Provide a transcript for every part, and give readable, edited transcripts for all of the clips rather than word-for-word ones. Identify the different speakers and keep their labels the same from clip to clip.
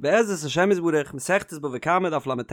Speaker 1: בעזרת השם יתברך, מסכת בבא קמא דף לט,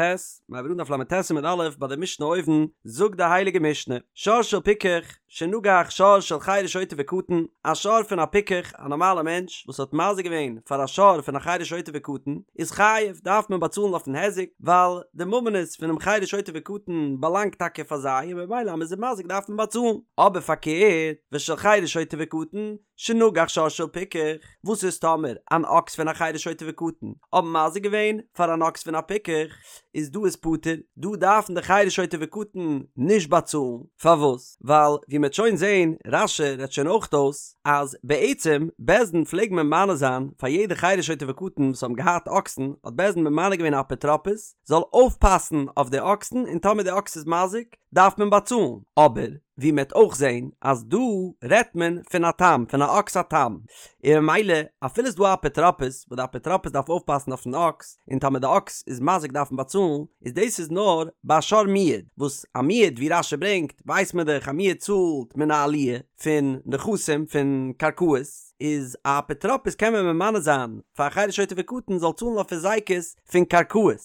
Speaker 1: מיר הייבן אן דף לט עמוד א' ביי די משנה אויבן, זאגט די הייליגע משנה, שור של פיקח, שנגח שור של חרש שוטה וקטן, א שור פון א פיקח, א נארמאלע מענטש, וואס האט מזיק געווען פאר א שור פון א חרש שוטה וקטן, איז חייב, דארף מען באצאלן אויפן היזק, ווייל די ממונות פונעם חרש שוטה וקטן באלאנגט טאקע פאר זיי, און ממילא אז מען איז מזיק דארף מען באצאלן. אבער פארקערט, ושל חרש שוטה וקטן, שנגח שור של פיקח, וואס איז טאמער אן אקס פון א חרש שוטה וקטן האבן מזיק געווען פאר אן אקס פון א פיקח, איז דא איז פטור, דא דארפן די חרש שוטה וקטן נישט באצאלן, פארוואס? ווייל ווי מ'עט שוין זעהן, רש"י רעדט שוין אויך אויס, אז בעצם בית דין פלעג ממנה זיין פאר יעדע חרש שוטה וקטן וואס האבן געהאט אקסן, האט בית דין ממנה געווען א אפוטרופוס זאל אויפפאסן אויף די אקסן און טאמער די אקס איז מזיק דארף מען באצאלן, אבער ווי מ'עט אויך זעהן אז דא רעדט מען פון א תם, פון א אקס א תם, און ממילא אפילו ס'דא א אפוטרופוס וואס די אפוטרופוס דארף אויפפאסן אויפן אקס, און טאמער די אקס איז מזיק דארף מען באצאלן, איז דאס איז נאר ביי א שור מועד, וואס א מועד ווי רש"י ברענגט ווייסט מען דאך א מועד צאלט מן העליה פון נכסים פון קרקעות, איז א אפוטרופוס קען מען ממנה זיין פאר א חרש שוטה וקטן זאל צאלן אויף היזקות פון קרקעות,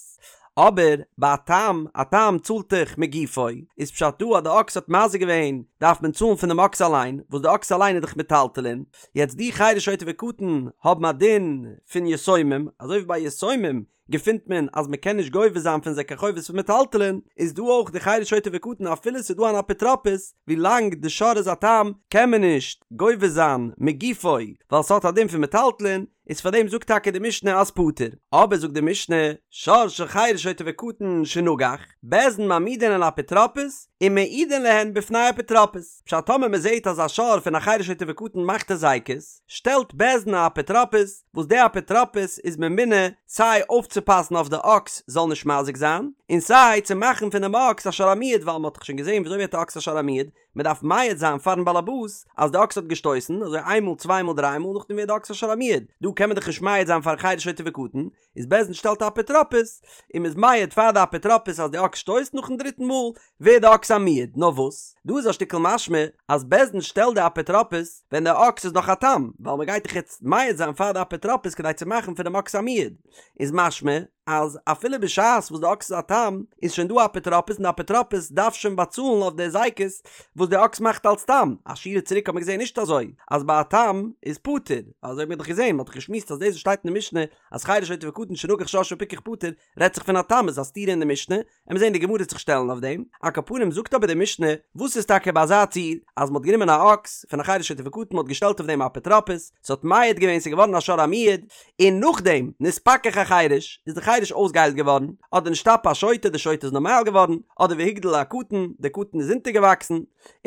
Speaker 1: אבער ביי א תם, א תם צאלט דאך מגופו, איז פשט דא אז די אקס האט מזיק געווען דארף מען צאלן פונעם אקס אליין, וואס די אקס אליין איז דאך מטלטלין, יעצט די חרש שוטה וקטן האבן א דין פון יתומים, אזוי ווי ביי יתומים געפינט מען אז מען קען נישט גובה זיין פון זיי קיין חובות פון מטלטלין, איז דא אויך די חרש שוטה וקטן אפילו ס'איז דא אן אפוטרופוס, ווי לאנג די שור איז א תם קען מען נישט גובה זיין מגופו ווייל ס'האט א דין פון מטלטלין, איז פאר דעם זאגט טאקע די משנה אז פטור, אבער זאגט די משנה, שור של חרש שוטה וקטן שנגח, בית דין מעמידין על אפוטרופוס ומעידין להן בפני אפוטרופוס, פשט טאמער מען זעט אז א שור פון א חרש שוטה וקטן מאכט הזיקות, שטעלט בית דין א אפוטרופוס, וואס די אפוטרופוס איז ממונה סיי אויפצופאסן אויף די אקס זאל נישט מזיק זיין, און סיי צו מאכן פונעם אקס א שור המועד ווייל מען האט דאך שוין געזען וויאזוי ווערט א אקס א שור המועד, מען דארף מעיד זיין פארן באלעבאס אז די אקס האט געשטויסן, אזוי איין מאל צוויי מאל דריי מאל נאכדעם ווערט די אקס א שור המועד, דא קען מען דאך נישט מעיד זיין פארן חרש שוטה וקטן, איז בית דין שטעלט א אפוטרופוס, און מען איז מעיד פאר די אפוטרופוס אז די אקס שטויסט, נאכן דריטן מאל ווערט די אקס א מועד, נאר וואס, דא איז א שטיקל משמע אז בית דין שטעלט די אפוטרופוס ווען די אקס איז נאך א תם, ווייל מען גייט דאך יעצט מעיד זיין פאר די אפוטרופוס כדי צו מאכן פונעם אקס א מועד, איז משמע אז אפילו בשעת וואס די אקס איז א תם איז שוין דא א אפוטרופוס און די אפוטרופוס דארף שוין באצאלן אויף די הזיקות וואס די אקס מאכט אלס תם, א שורה צוריק האט מען געזען נישט אזוי אז ביי א תם איז פטור, אזוי האט מען דאך געזען, מען האט דאך געשמועסט אז דאס וואס שטייט אין די משנה אז חרש שוטה וקטן שנגח שור של פיקח פטור רעדט זיך פון א תם איז א סתירה אין די משנה, עמיר זען די גמרא וועט זיך שטעלן אויף דעם, על כל פנים זאגט אבער די משנה, וואס איז טאקע ביי אזא ציור אז מ'האט גענומען א אקס פון א חרש שוטה וקטן מ'האט געשטעלט אויף דעם א אפוטרופוס, ס'האט מעיד געווען ס'איז געווארן א שור המועד, און נאכדעם נתפכח החרש איז די חרש אויסגעהיילט געווארן, אדער נשתפה השוטה די שוטה איז נארמאל געווארן, אדער והגדיל הקטן די קטן איז אונטערגעוואקסן,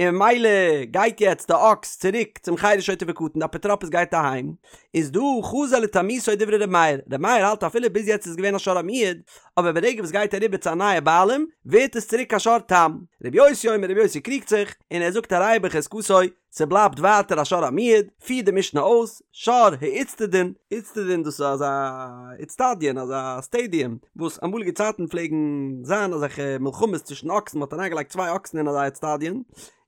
Speaker 1: און ממילא גייט יעצט די אקס צוריק צום חרש שוטה וקטן די אפוטרופוס גייט אהיים, איז דא חזר לתמותו דברי ר' מאיר, ר' מאיר האלט אפילו ביז יעצט איז געווען א שור המועד, אבער ברגע וואס גייט אריבער צו א נייע בעלים ווערט עס צוריק א שור תם. ר' יוסי אומר ר' יוסי קריגט זיך און ער זאגט הרי הוא בחזקתו, ס'בלייבט ווייטער א שור המועד, פירט די משנה אויס, שור האיצטדין, איצטדין דאס איז אזא איצטדיון אזא סטעדיום וואס אמאליגע צייטן פלעגן זיין אזעלכע מלחמות צווישן אקסן מ'האט אריינגעלייגט צוויי אקסן אין אזא איצטדיון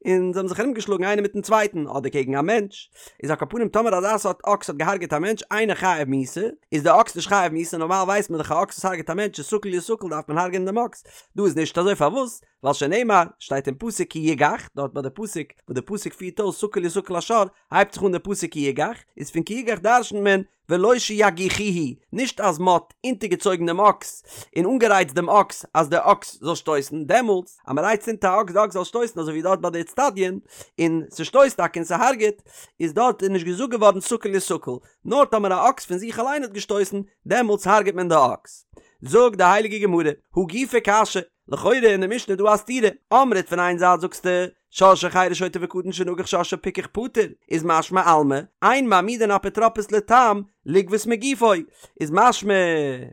Speaker 1: און זיי האבן זיך ארומגעשלאגן איינער מיטן צווייטן אדער קעגן א מענטש, איז על כל פנים טאמער אזא סארט אקס האט געהארגעט א מענטש אינו חייב מיתה, איז די אקס נישט חייב מיתה, נארמאל ווייסט מען דאך א אקס וואס הארגעט א מענטש איז סקול יסקל דארף מען הארגענען דעם אקס, דא איז נישט אזוי פארוואס? ווייל שנאמר, שטייט אין פסוק כי יגח, דארט ביי די פסוק וואס די פסוק פירט אויס סקול יסקל השור, הייבט זיך אן די פסוק כי יגח, איז פון כי יגח דרשנ'ט מען ולא שיגיחוהו, נישט אז מ'האט אונטערגעצויגן דעם אקס און אנגערייצט דעם אקס אז דער אקס זאל שטויסן, דעמאלטס אז מ'רייצט אונטער א אקס די אקס זאל שטויסן אזוי ווי דארט ביי די אצטדיון, און ס'שטויסט טאקע און ס'הארגעט, איז דארט איז נישט געזאגט געווארן סקול יסקל, נאר טאמער א אקס פון זיך אליין האט געשטויסן, דעמאלטס הארגעט מען די אקס. זאגט די הייליגע גמרא, הא גופא קשיא, לכאורה אין די משנה איז דא א סתירה, אמרת פון איין זייט זאגסטו, שור של חרש שוטה וקטן שנגח שור של פיקח פטור, איז משמע אלמא, אין מעמידין אפוטרופוס לתם לגבות מגופו, איז משמע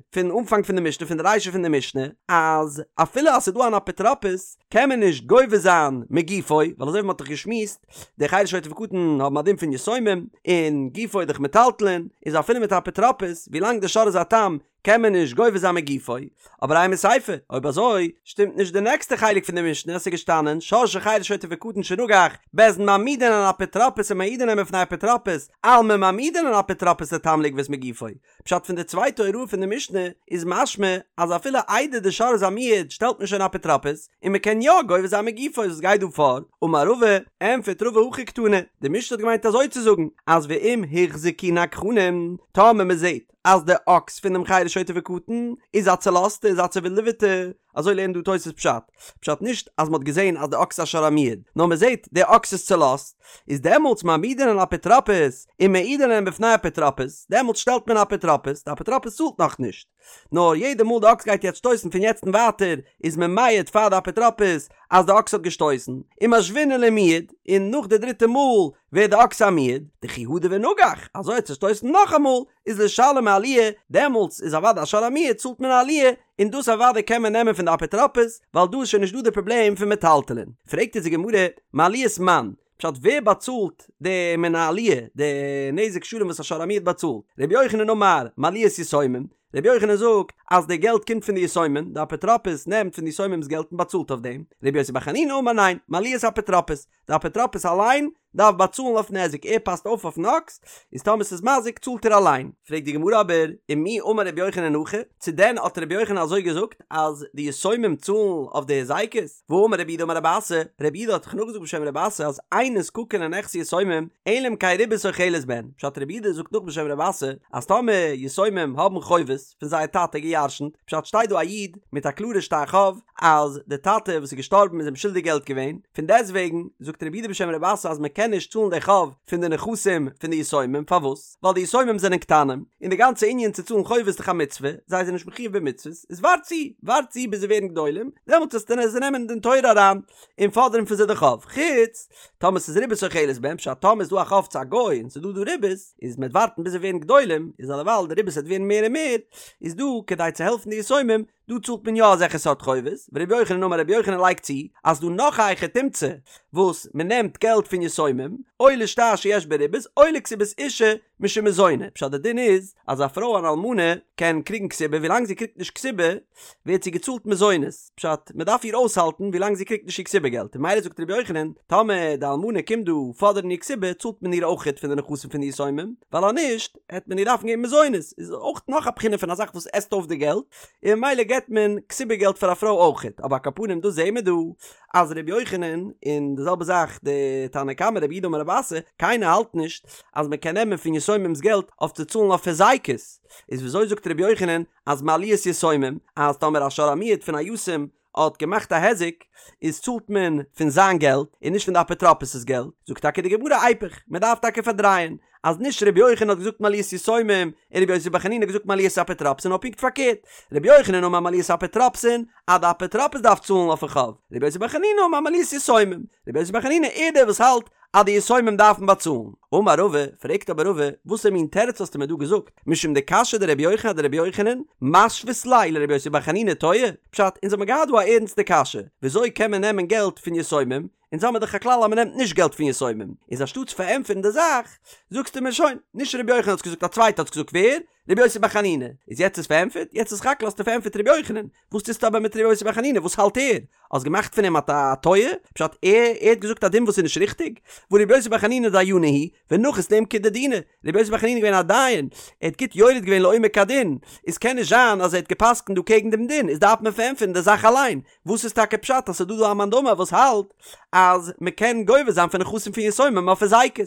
Speaker 1: פון אנפאנג פון די משנה פון די רישא פון די משנה אז אפילו אז ס'איז דא אן אפוטרופוס קען מען נישט גובה זיין מגופו, ווייל אזוי ווי מ'האט דאך געשמועסט די חרש שוטה וקטן האבן א דין פון יתומים, און גופו איז דאך מטלטלין, איז אפילו מיט א אפוטרופוס ווילאנג די שור איז א תם קען מען נישט גובה זיין מגופו, אבער אימא סיפא, אויב אזוי שטימט נישט די נעקסטע חלק פון די משנה, עס איז געשטאנען שור של חרש שוטה וקטן שנגח, בית דין מעמידין על אפוטרופוס ומעידין להם בפני אפוטרופוס, אלמא מעמידין על אפוטרופוס לתם. סתם לגבות מגופו. פשט פון די צווייטע הוראה פון די משנה איז משמע אז אפילו איידער די שור איז א מועד שטעלט מען שוין אפוטרופוס און מען קען יא גובה זיין מגופו וואס גייט דא פאר? אמר רבא, ענפערט רבא הכי קתני, די משנה האט געמיינט אזוי צו זאגן אז ואם הוחזקו נגחנים טאמער מען זעט אז די אקס פון דעם חרש שוטה וקטן איז א צולאזטע איז א צעווילדעוועטע אזוי לערנט דא תוס' פשט, פשט נישט אז מ'האט געזען אז די אקס איז א שור המועד, נאר מ'זעט די אקס איז צולאזט, איז דעמאלטס מעמידין אפוטרופוס ומעידין להם בפני אפוטרופוס, דעמאלטס שטעלט מען אפוטרופוס, די אפוטרופוס צאלט נאכנישט, נאר יעדע מאל די אקס גייט יעצט שטויסן פון יעצט און ווייטער איז מען מעיד פאר די אפוטרופוס אז די אקס האט געשטויסן, ומשוינן למועד, און נאך די דריטע מאל ווערט די אקס א מועד, דכי הדר ונגח, אזוי האט צושטויסן נאכאמאל, איז לשלם עליה, דעמאלטס איז אוודאי א שור המועד צאלט מען עליה, און דאס אוודאי קען מען נעמען פון די אפוטרופוס, ווייל דא איז שוין נישט דא די פראבלעם פון מטלטלין. פרעגט אונז די גמרא, מעליית מאן? פשט ווער באצאלט די מן העליה, די נזק שלם וואס א שור המועד באצאלט? רבי יוחנן אמר, מעליית יתומים, רבי יוחנן זאגט אז די געלט קומט פון די יתומים, די אפוטרופוס נעמט פון די יתומים'ס געלט און באצאלט אויף דעם, רבי יוסי בר חנינא אמר ניין, מעליית אפוטרופוס, די אפוטרופוס אליין דארף באצאלן אויף נזק, ער פאסט אויף אויפן אקס, איז טאמער ס'איז מזיק צאלט ער אליין. פרעגט די גמרא אבער, ומי אמר רבי יוחנן הכי, צו דען האט רבי יוחנן אזוי געזאגט אז די יתומים צאלן אויף די הזיקות? והאמר רב יהודה אמר רב אסי, רב יהודה האט דאך נאכגעזאגט בשם רב אסי אז אין נזקקין לנכסי יתומים אלא אם כן ריבית אוכלת בהן, פשט רב יהודה זאגט נאך בשם רב אסי אז טאמער יתומים האבן חובות פון זייער טאטע געירשנט, פשט שטייט דא א איד מיט א קלארע שטר חוב אז די טאטע וואס איז געשטארבן איז אים שולדיג געלט געווען, פון דעסט וועגן זאגט רב יהודה בשם רב אסי אז מען קען נישט צאלן די חוב פון די נכסים פון די יתומים, פארוואס? ווייל די יתומים זענען קטנים, און די גאנצע ענין צו צאלן חובות איז דאך א מצוה, זיי זענען נישט מחויב במצוות, איז ווארט צו, ווארט צו ביז זיי ווערן גדולים, דעמאלטס וועסטו זיי נעמען אין דין תורה אריין, און פאדערן פון זיי די חוב, חוץ טאמער ס'איז ריבית אוכלת בהן, פשט טאמער איז דא א חוב צו א גוי און ס'איז דא דא ריבית, איז מ'וועט ווארטן ביז זיי ווערן גדולים, איז אלעווייל די ריבית וועט ווערן מער און מער, איז דא כדי צו העלפן די יתומים, דא צאלט מען יא אזעלכע סארט חובות, ורבי יוחנן אמר רבי יוחנן לייגט צו אז דא נאך א היכי תמצא וואס מען נעמט געלט פון יתומים, או לשטר שיש בו ריבית או לכתובת אשה משום מזוני, פשט די דין איז אז א פרוי אן אלמנה קען קריגן כתובה ווילאנג זי קריגט נישט כתובה ווערט זי געצאלט מזונות, פשט מען דארף איר אויסהאלטן ווילאנג זי קריגט נישט איר כתובה געלט, און ממילא זאגט רבי יוחנן טאמער די אלמנה קומט דא פאדערן איר כתובה צאלט מען איר אויכעט פון די נכסים פון די יתומים, ווייל אז נישט העט מען איר דארפן געבן מזונות, איז אויך נאך א בחינה פון א זאך וואס עסט אויף די געלט, און ממילא געבט מען כתובה געלט פאר א פרוי אויכעט, אבער על כל פנים דא זעהן מיר דא אז ר' יוחנן, און די זעלבע זאך די תנא קמא רב יהודה אמר רב אסי, קיינער האלט נישט אז מען קען נעמען פון יתומים'ס געלט אויף צו צאלן אויף הזיקות, איז וויאזוי זאגט ר' יוחנן אז מעליית יתומים, אז טאמער א שור המועד פון א יתום האט געמאכט א היזק, איז צאלט מען פון זיין געלט און נישט פון די אפוטרופוס'ס געלט, זאגט טאקע די גמרא איפוך, מען דארף טאקע פארדרייען, אז נישט רבי יוחנן האט געזאגט מעליית יתומים און רבי יוסי בר חנינא האט געזאגט מעליית אפוטרופוסין נאר פונקט פארקערט, רבי יוחנן אמר מעליית אפוטרופוסין אז די אפוטרופוס דארף צאלן אויפן חוב, רבי יוסי בר חנינא אמר מעליית יתומים, רבי יוסי בר חנינא איז דער וואס האלט אז די יתומים דארפן באצאלן. אמר רבא, פרעגט אבער רבא, וואסער מין תירוץ האסטו מיר דא געזאגט, משום דקשיא דרבי יוחנן אדרבי יוחנן, משווית ליה לרבי יוסי בר חנינא טועה? פשט, אונז האבן געהאט דא א ערנסטע קשיא, וויאזוי קען מען נעמען געלט פון יתומים, אונז האמיר דאך א כלל אז מען נעמט נישט געלט פון יתומים, איז אנשטאטס פארענטפערן די זאך, זאגסטו מיר שוין, נישט רבי יוחנן האט עס געזאגט א צווייטער האט עס געזאגט, ווער? רבי יוסי בר חנינא, איז יעצט איז פארענטפערט? יעצט איז סך הכל האסטו פארענטפערט רבי יוחנן, וואס טוסטו אבער מיט רבי יוסי בר חנינא, וואס האלט ער? האסט געמאכט פון אים א טועה? פשט ער ער האט געזאגט א דין וואס איז נישט ריכטיג? והא רבי יוסי בר חנינא דיינא הוא, ונחית לעומקא דדינא, רבי יוסי בר חנינא איז געווען א דיין, ער האט גוט יורד געווען לעומק הדין, איז קען נישט זיין אז ער האט גע'פסק'נט דא קעגן דעם דין, איז דארף מען פארענטפערן די זאך אליין, וואס איז טאקע פשט אז ס'איז דא דא א מאן דאמר וואס האלט אז מ'קען גובה זיין פון נכסים פון יתומים אויף הזיקות?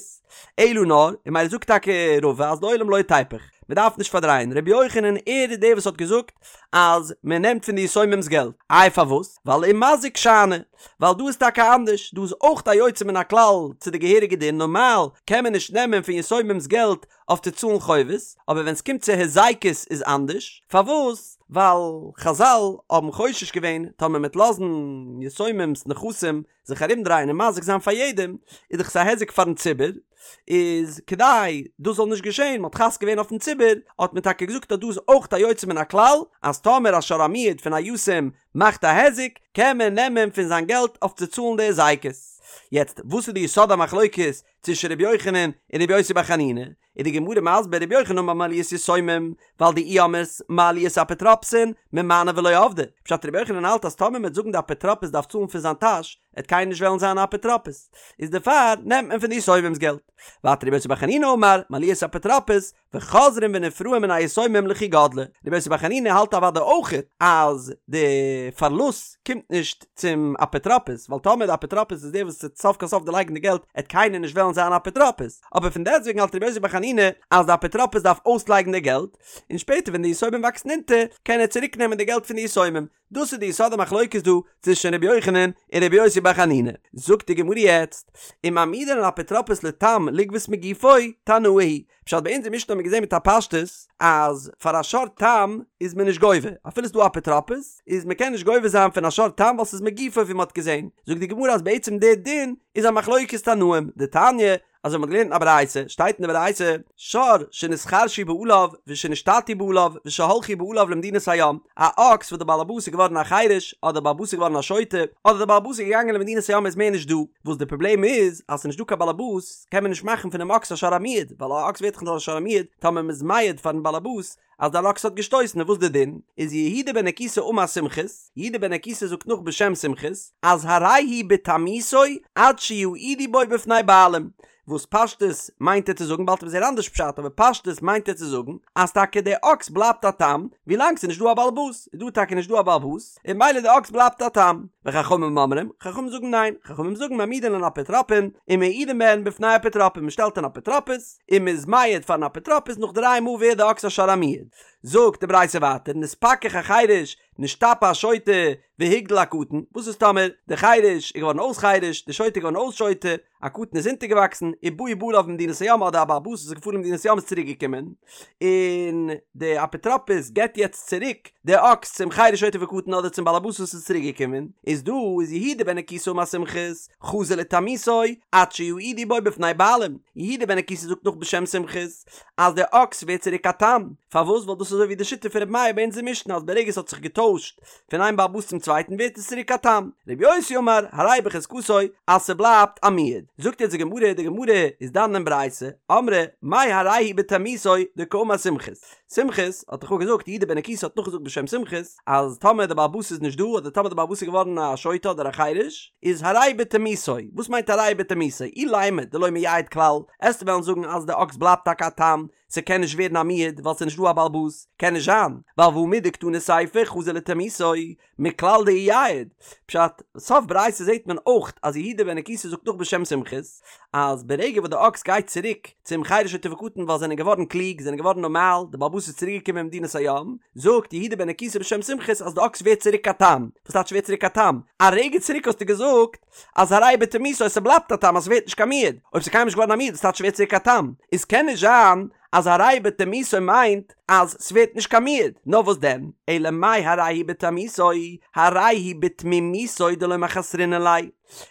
Speaker 1: אלא נאר, און ממילא זאגט טאקע רבא אז לעולם לא תיפוך, מ'דארף נישט פארדרייען, רבי יוחנן ער איז דער וואס האט געזאגט אז מ'נעמט פון די יתומים'ס געלט, איי פארוואס? ווייל ומזיק שאני, ווייל דא איז טאקע אנדערש, דא איז אויך א יוצא מן הכלל צו די געהעריגע דין, נארמאל קען מען נישט נעמען פון יתומים'ס געלט אויף צו צאלן חובות, אבער ווען ס'קומט צו הזיקות איז אנדערש, פארוואס? ווייל חזל האבן חושש געווען טאמער מ'עט לאזן יתומים'ס נכסים זיך ארומדרייען און מזיק זיין פאר יעדעם, איז דאך עס א היזק פארן ציבור, איז כדי דאס זאל נישט געשען, מ'האט חס געווען אויפן ציבור, האט מען טאקע געזאגט אז דא איז אויך א יוצא מן הכלל, אז טאמער א שור המועד פון א יתום מאכט א היזק, קען מען נעמען פון זיין געלט אויף צו צאלן די הזיקות. יעצט, וואס איז די יסוד המחלוקת? צווישן ר' יוחנן און ר' יוסי בר חנינא, איז די גמרא מסביר ר' יוחנן אמר מעליית יתומים, ווייל דאי אמרת מעליית אפוטרופסין ממאני ולא עבדי, פשט ר' יוחנן האלט אז טאמער מ'וועט זאגן די אפוטרופוס דארף צאלן פון זיין טאש, עט קיינער נישט וועלן זיין א אפוטרופוס, איז דערפאר נעמט מען פון די יתומים'ס געלט. ווייטער ר' יוסי בר חנינא אמר מעליית אפוטרופוס, וחוזרים ונפרעים מן היתומים לכי גדלי, רבי יוסי בר חנינא האלט אוודאי אויכעט אז די פארלוסט קומט נישט צום אפוטרופוס, ווייל טאמער די אפוטרופוס איז דער וואס וועט סוף כל סוף דערלייגן די געלט עט קיינער נישט וועלן זיין אפוטרופוס, אבער פון דעסטוועגן האלט רבי יוסי בר חנינא אז די אפוטרופוס דארף אויסלייגן די געלט, און שפעטער ווען די יתומים וואקסן אונטער קען ער צוריק נעמען די געלט פון די יתומים, דאס איז די יסוד המחלוקת דא צווישן רבי יוחנן און רבי יוסי בר חנינא. זאגט די גמרא יעצט, ומעמידין אפוטרופוס לתם לגבות מגופו, תנאי היא פשט ביי אונזער משנה האט מען געזען מיט א פשטות אז פאר א שור תם איז מען נישט גובה, אפילו ס'איז דא אפוטרופוס איז מען קען נישט גובה זיין פון א שור תם ווייל ס'איז מגופו ווי מ'האט געזען, זאגט די גמרא אז בעצם די דין איז א מחלוקת תנאים, דתניא, אזוי מ'האט געלערנט אין א ברייתא, שטייט אין די ברייתא, שור שנתחרשו בעליו ושנשתטו בעליו ושהלכו בעליו למדינת הים, א אקס וואס די בעל הבית איז געווארן א חירש, אדער די בעל הבית איז געווארן א שוטה, אדער די בעל הבית איז געגאנגען למדינת הים איז מער נישט דא, וואס די פראבלעם איז אז ס'איז נישט דא קיין בעל הבית קען מען נישט מאכן פונעם אקס א שור המועד, ווייל א אקס ווערט דאך נאר א שור המועד טאמער מ'איז מעיד פארן בעל הבית אז דער אקס האט געשטויסן און וואס די דין איז יהודה בן נקוסא אמר סומכוס, יהודה בן נקוסא זאגט נאך בשם סומכוס אז הרי הוא בתמותו עד שיעידו בו בפני בעלים, וואס פשטות מיינט ער צו זאגן באלד וועט מען זעהן אנדערש פשט אבער פשטות מיינט ער צו זאגן אז טאקע דער אקס בלייבט א תם ווילאנג ס'איז נישט דא א בעל הבית, איז דא טאקע נישט דא א בעל הבית און ממילא די אקס בלייבט א תם, וחכמים אומרים, חכמים זאגן ניין, חכמים זאגן מעמידין להן אפוטרופין ומעידין בהן בפני אפוטרופין, מ'שטעלט אן אפוטרופוס, און מ'איז מעיד פארן אפוטרופוס נאך דריי מאל ווערט די אקס א שור המועד. זאגט די ברייתא ווייטער נתפכח החרש נשתפה השוטה והגדיל הקטן, וואס איז טאמער די חרש איז געווארן אויס חרש, די שוטה איז געווארן אויס שוטה, א קטן איז אונטערגעוואקסן, ובאו בעליו ממדינת הים אדער א בעל הבית וואס איז געפארן למדינת הים איז צוריק געקומען, און די אפוטרופוס געבט יעצט צוריק די אקס צום חרש שוטה וקטן אדער צום בעל הבית וואס איז צוריק געקומען, איז דא איז יהודה בן נקוסא אמר סומכוס, חזר לתמותו עד שיעידו בו בפני בעלים, יהודה בן נקוסא זאגט נאך בשם סומכוס אז דער אקס ווערט צוריק א תם, פארוואס ווייל דאס איז אזוי ווי די שיטה פון רבי מאיר ביי אונזער משנה אז ברגע עס האט זיך געטוישט פון איין בעל הבית צום צווייטן ווערט עס צוריק א תם, רבי יוסי אמר הרי בחזקתו אז ס'בלייבט א מועד, זאגט יעצט די גמרא, די גמרא איז דן אין ברייתא, אמרי מאי הרי הוא בתמותו דקאמר סומכוס, סומכוס האט דאך געזאגט יהודה בן נקוסא האט נאכגעזאגט בשם סומכוס אז טאמער די בעל הבית איז נישט דא אדער טאמער די בעל הבית איז געווארן א שוטה אדער א חירש איז הרי בתמותו, וואס מיינט הרי בתמותו? אילימא דלא מייעד כלל, עסטו וועלן זאגן אז די אקס בלייבט טאקע א תם, ס'קען נישט ווערן א מועד ווייל ס'איז נישט דא א בעל הבית, קען נישט זיין, ווייל והא מדקתני סיפא חזר לתמותו, מכלל דאייעד, פשט, סוף ברייתא זעט מען אויך אז יהודה בן נקוסא זאגט נאך בשם סומכוס, אז ברגע וואס די אקס גייט צוריק צום חרש שוטה וקטן ווייל זענען געווארן קלוג, זענען געווארן נארמאל, די בעל הבית איז צוריק געקומען ממדינת הים, זאגט יהודה בן נקוסא בשם סומכוס אז די אקס ווערט צוריק א תם, וואס טייטש ווערט צוריק א תם? א רגע צוריק האסטו געזאגט אז הרי בתמותו ס'בלייבט א תם אז ס'ווערט נישט קיין מועד, אויב ס'איז קיינמאל נישט געווארן א מועד וואס טייטש ווערט צוריק א תם? איז קען נישט זיין אז הרי בתמותו מיינט אז ס'ווערט נישט קיין מועד, נאר וואס דען, אלא מאי הרי הוא בתמותו, הרי הוא בתמימותו דלא מחסרינן ליה.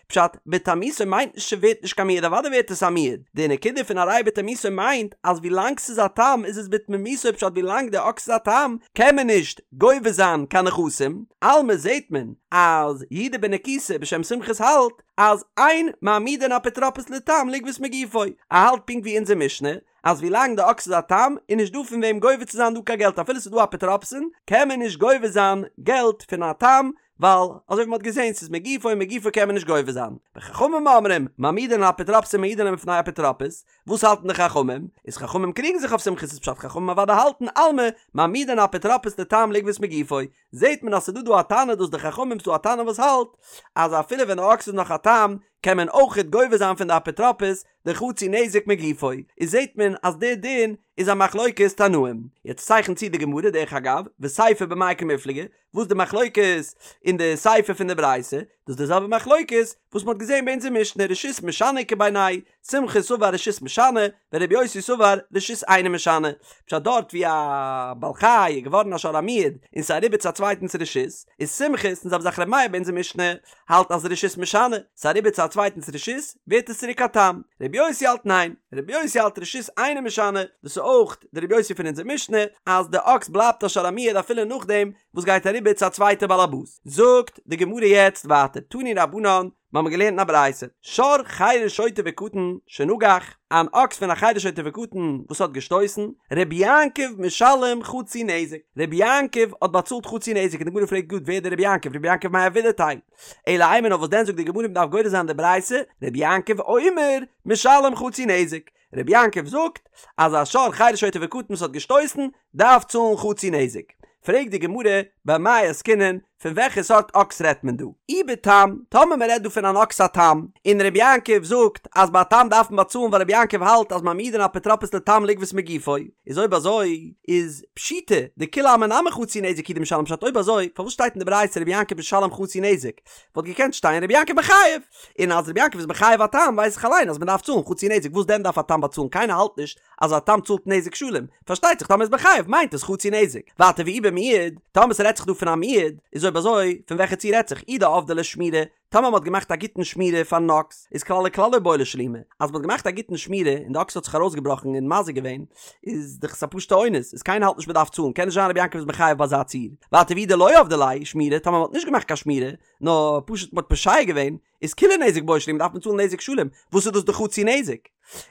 Speaker 1: פשט, בתמותו מיינט נישט ס'ווערט נישט קיין מועד, אוודאי ווערט עס א מועד, די נקודה פון הרי בתמותו מיינט אז ווילאנג ס'איז א תם איז עס בתמימותו פשט ווילאנג די אקס איז א תם קען מען נישט גובה זיין קיין נכסים, אלמא זעהט מען אז יהודה בן נקוסא בשם סומכוס האלט אז אין מעמידין אפוטרופוס לתם לגבות מגופו, ער האלט פונקט ווי אונזער משנה אז ווילאנג די אקס איז א תם איז נישט דא פון וועם גובה צו זיין דא קיין געלט אפילו ס'איז דא אפוטרופסין קען מען נישט גובה זיין געלט פון א תם ווייל אזוי ווי מ'האט געזען ס'איז מגופו און מגופו קען מען נישט גובה זיין. וחכמים אומרים, מעמידין אפוטרופסין ומעידין להם בפני אפוטרופוס, וואס האלטן די חכמים? איז חכמים קריגן זיך אויף סומכוס' פשט חכמים אוודאי האלטן אלמא מעמידין אפוטרופוס לתם לגבות מגופו, זעט מען אז ס'דא דא א תנא דאס די חכמים ס'דא א תנא וואס האלט אז אפילו ווען די אקס איז נאך א תם קען מען אויכעט גובה זיין פון די אפוטרופוס די חצי נזק מגופו, איז זעט מען אז די דין איז א מחלוקת תנאים. יעצט צייכנט צו די גמרא דרך אגב, וסיפא במאי קמיפלגי, וואס די מחלוקת אין די סיפא פון די ברייתא, דאס איז די זעלבע מחלוקת וואס מ'האט געזען ביי אונזער משנה רשות משנה איכא בינייהו, סומכוס סבר רשות משנה, ורבי יוסי סבר רשות אינה משנה, פשט דארט ווי א בעל חי איז געווארן א שור המועד און ס'איז אריבער צו א צווייטנס רשות, איז סומכוס און זעלבע זאך ר' מאיר ביי אונזער משנה האלט אז רשות משנה, ס'איז אריבער צו א צווייטנס רשות ווערט עס צוריק א תם, רבי יוסי האלט ניין, רבי יוסי האלט רשות אינה משנה, דאס איז אויך די רבי יוסי פון אונזער משנה אז די אקס בלייבט א שור המועד אפילו נאכדעם וואס גייט אריבער צו א צווייטע בעל הבית. זאגט די גמרא יעצט ווייטער תנו רבנן, מיר האבן געלערנט אין א ברייתא, שור חרש שוטה וקטן שנגח, אן אקס פון א חרש שוטה וקטן וואס האט געשטויסן, רבי יעקב משלם חצי נזק, רבי יעקב האט באצאלט חצי נזק, און די גמרא פרעגט גראד ווער איז דער רבי יעקב, רבי יעקב מאי עבידתיה, אלא אימא נאר וואס דען זאגט די גמרא מ'דארף גורס זיין די ברייתא, רבי יעקב אומר משלם חצי נזק, רבי יעקב זאגט אז א שור חרש שוטה וקטן וואס האט געשטויסן דארף צאלן חצי נזק. פרעגט די גמרא במאי עסקינן, פון וועלכע סארט אקס רעדט מען דא? אי בתם, טאמער מען רעדט דא פון אן אקס א תם, און רבי יעקב זאגט אז ביי א תם דארף מען באצאלן ווייל רבי יעקב האלט אז מעמידין אפוטרופוס לתם לגבות מגופו, איז אויב אזוי איז פשיטא דכולי עלמא נמי חצי נזק הוא דמשלם פשט אויב אזוי פארוואס שטייט אין די ברייתא רבי יעקב משלם חצי נזק? וואלט געקענט שטיין רבי יעקב מחייב, און אז רבי יעקב איז מחייב א תם ווייס איך אליין אז מען דארף צאלן חצי נזק וואס דען דארף א תם באצאלן קיינער האלט נישט אז א תם צאלט נזק שלם, פארשטייט זיך טאמער איז מחייב מיינט עס חצי נזק, ווייטער ואי במועד, טאמער ס'רעדט זיך דא פון א מועד, איז אויב אזוי פון וועלכע ציור רעדט זיך אי דעבדי ליה שמירה, טאמער מ'האט געמאכט א גוטן שמירה פארן אקס, איז כלל וכלל לא בעי לשלומי, אז מ'האט געמאכט א גוטן שמירה און די אקס האט זיך ארויסגעבראכן און מזיק געווען, איז דאך עס א פשוטע אונס, איז קיינער האלט נישט מ'דארף צאלן, קען נישט זיין רבי יעקב איז מחייב ביי אזא ציור. ווייטער ואי דלא עבדי ליה שמירה, טאמער מ'האט נישט געמאכט קיין שמירה, נאר פשוט מ'האט פושע געווען, איז כוליה נזק בעי שלומי דארף מען צאלן נזק שלם, וואס איז דאס די חצי נזק?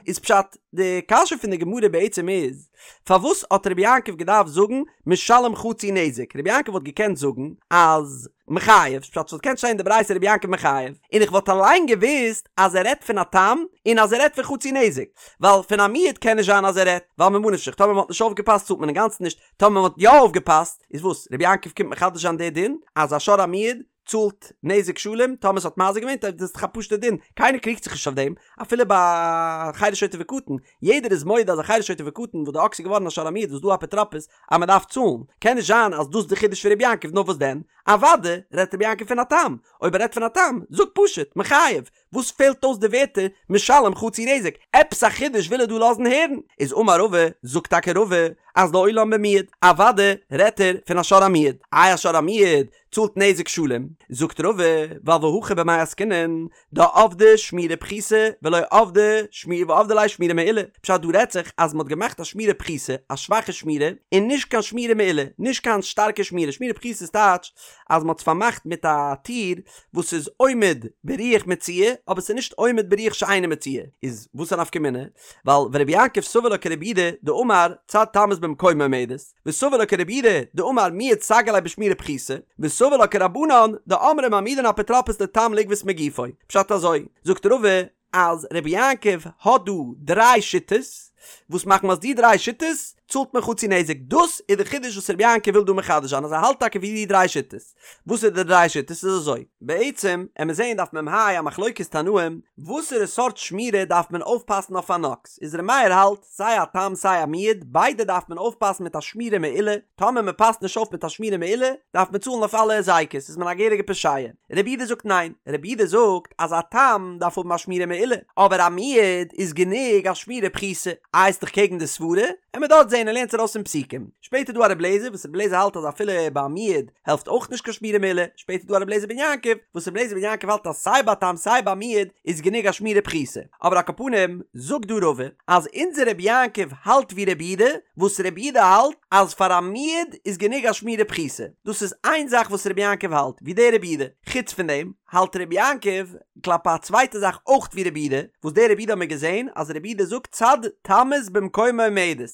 Speaker 1: איז פשט, די קשיא פון די גמרא בעצם איז, פארוואס האט רבי יעקב געדארפט זאגן משלם חצי נזק? רבי יעקב וואלט געקענט זאגן אז מחייב, פשט ס'וואלט געקענט שטיין אין די ברייתא רבי יעקב מחייב, און איך וואלט אליין געוואוסט אז ער רעדט פון א תם און אז ער רעדט פון חצי נזק, ווייל פון א מועד קען נישט זיין אז ער רעדט, ווייל ממה נפשך טאמער מ'האט נישט אויפגעפאסט צאלט מען אינגאנצן נישט, טאמער מ'האט יא אויפגעפאסט, איז וואס? רבי יעקב קומט מחדש זיין די דין אז א שור המועד צאלט נזק שלם טאמער ס'האט מזיק געווען, דאס איז דאך א פשוטע דין, קיינער קריגט זיך נישט אויף דעם, אפילו ביי חרש שוטה וקטן, יעדער איז מודה אז א חרש שוטה וקטן וואס די אקס איז געווארן א שור המועד וואס דא אפוטרופוס אז מען דארף צאלן, קען נישט זיין אז דאס איז די חידוש פון רבי יעקב, נאר וואס דען? אוודאי רעדט רבי יעקב פון א תם, אויב ער רעדט פון א תם, זאג פשוט, מחייב, וואס פעלט אויס די ווערטער משלם חצי נזק? עפעס א חידוש וויל ער דא לאזן הערן? איז אמר רבא, זאגט טאקע רבא, אז לעולם במועד, אוודאי רעדט ער פון א שור המועד, איי א שור המועד צאלט נזק שלם? זאגט רבא, ווייל והכא במאי עסקינן, דעבדי שמירה פחותה ולא עבדי שמירה ועבדי ליה שמירה מעולה, פשט דא רעדט זיך אז מ'האט געמאכט א שמירה פחותה, א שוואכע שמירה, און נישט קיין שמירה מעולה, נישט קיין שטארקע שמירה, שמירה פחותה איז טייטש אז מ'האט עס פארמאכט מיט א טיר וואס איז עומד ברוח מצויה אבער ס'איז נישט עומד ברוח שאינה מצויה, איז וואס א נפקא מינה? ווייל ורבי יעקב סבר לה כרבי יהודה דאמר צד תמות במקומה עומדת, וסבר לה כרבי יהודה דאמר מועד סגי ליה בשמירה פחותה, וסבר לה כרבנן דאמרי מעמידין אפוטרופוס לתם לגבות מגופו. פשט אזוי, זאגט רבא אז רבי יעקב האט דא דריי שיטות, וואס מחמת די דריי שיטות צאלט מען חצי נזק, דאס איז די חידוש וואס רבי יעקב וויל דא מחדש זיין אז ער האלט טאקע ווי די דריי שיטות. וואס איז די דריי שיטות? איז אזוי, בעצם עמיר זעהן דף מ"ה א מחלוקת תנאים, וואסערע סארט שמירה דארף מען אויפפאסן אויף אן אקס, איז ר' מאיר האלט, סיי א תם סיי א מועד, ביידע דארף מען אויפפאסן מיט א שמירה מעולה, טאמער מען פאסט נישט אויף מיט א שמירה מעולה, דארף מען צאלן אויף אלע היזקות, איז מען א געהעריגע פושע. רבי יהודה זאגט ניין, רבי יהודה זאגט אז א תם דארף האבן א שמירה מעולה, אבער א מועד איז גענוג א שמירה פחותה, איי ס'איז דאך קעגן די סברה, עמיר דארט זעהן ער לערנט ארויס פון פסוקים. שפעטער דא א רבי אליעזר וואס רבי אליעזר האלט אז אפילו ביי א מועד העלפט אויך נישט קיין שמירה מעולה, שפעטער דא א רבי אליעזר בן יעקב וואס רבי אליעזר בן יעקב האלט אז סיי ביי א תם סיי ביי א מועד איז גענוג א שמירה פחותה, אבער על כל פנים זאגט דא רבא אז אונזער רבי יעקב האלט ווי רבי יהודה וואס רבי יהודה האלט אז פאר א מועד איז גענוג א שמירה פחותה, דאס איז איין זאך וואס רבי יעקב האלט ווי דער רבי יהודה, חוץ פון דעם האלט רבי יעקב כלפי א צווייטע זאך אויך ווי רבי יהודה, וואס דער רבי יהודה האט מיר געזען אז רבי יהודה זאגט צד תמות במקומה עומדת.